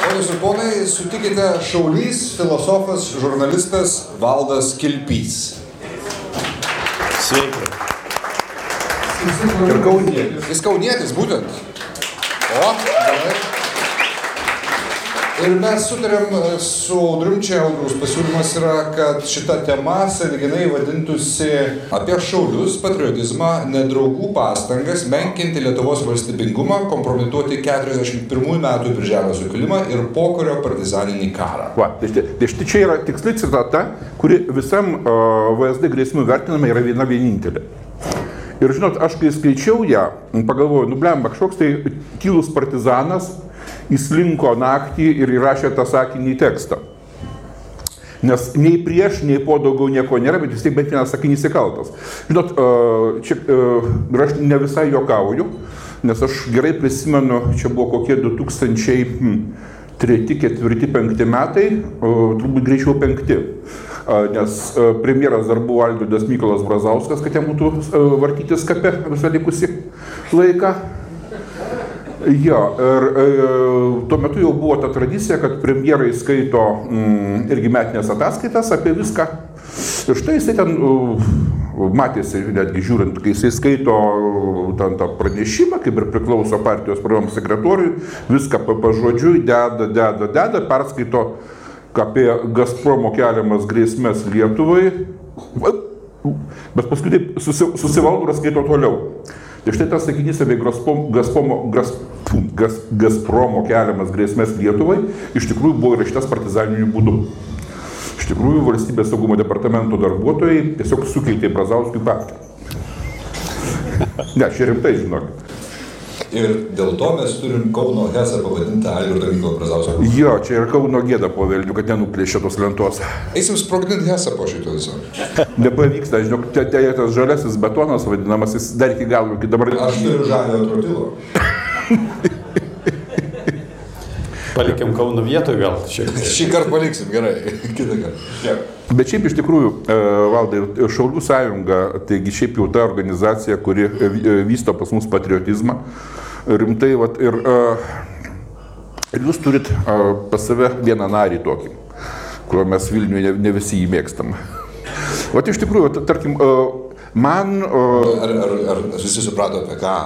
Ponios ir ponai, sutikite šaulys, filosofas, žurnalistas Valdas Kilpys. Sveiki. Ir kaunietis. Jis kaunietis, būtent. O, gerai. Ir mes sutarėm su Audrium, čia Audriaus pasiūlymas yra, kad šita tema sąlyginai vadintųsi apie šaulius, patriotizmą, nedraugų pastangas, menkinti Lietuvos valstybingumą, kompromituoti 41 metų Birželio sukilimą ir pokario partizaninį karą. Va, tai štai čia yra tiksli citata, kuri visam VSD grėsmių vertinama yra viena vienintelė. Ir žinot, aš kai skaičiau ją, pagalvojau, blemba, kažkoks tai tylus partizanas įslinko naktį ir įrašė tą sakinį į tekstą. Nes nei prieš, nei po daugiau nieko nėra, bet vis tiek bent vienas sakinys įkaltas. Žinot, čia aš ne visai juokauju, nes aš gerai prisimenu, čia buvo kokie 2003, 2004, 2005 metai, turbūt greičiau 5. Nes premjeras dar buvo Algirdas Mykolas Brazauskas, kad jam būtų vartytis kape visą likusį laiką. Jo, ir tuo metu jau buvo ta tradicija, kad premjerai skaito irgi metinės ataskaitas apie viską. Ir štai jisai ten matėsi, netgi žiūrint, kai jisai skaito ten tą pranešimą, kaip ir priklauso partijos programos sekretoriui, viską pažodžiui deda, perskaito apie Gazpromo keliamas grėsmes Lietuvai, bet paskui taip susivaldo ir skaito toliau. Tai štai tas sakinys apie Gazpromo keliamas grėsmes Lietuvai iš tikrųjų buvo įrašytas partizaniniu būdu. Iš tikrųjų, valstybės saugumo departamento darbuotojai tiesiog sukeitė Brazauskui paktą. Ne, čia rimtai, žinokit. Ir dėl to mes turim Kauno Hesą pavadintą Algirdo Mykolo Brazausko. Jo, čia ir Kauno gėda po velnių, kad nenuplėšė tos lentos. Eisim sprogdinti Hesą po šito viso. Nepavyksta, žinok, tas žaliasis betonas vadinamas, jis dar iki galo, iki dabar... Aš turiu žalio trotilo. Palikim Kauno vietoje gal šiek tiek. Šį kartą paliksim, gerai. Kitą kartą. Bet šiaip iš tikrųjų, Valdai, Šaulių sąjunga, taigi šiaip jau ta organizacija, kuri vysto pas mus patriotizmą, rimtai, vat, ir jūs turit pas save vieną narį tokį, kurio mes Vilniuje ne visi jį mėgstam. Vat iš tikrųjų, tarkim, man... Ar visi suprato apie ką?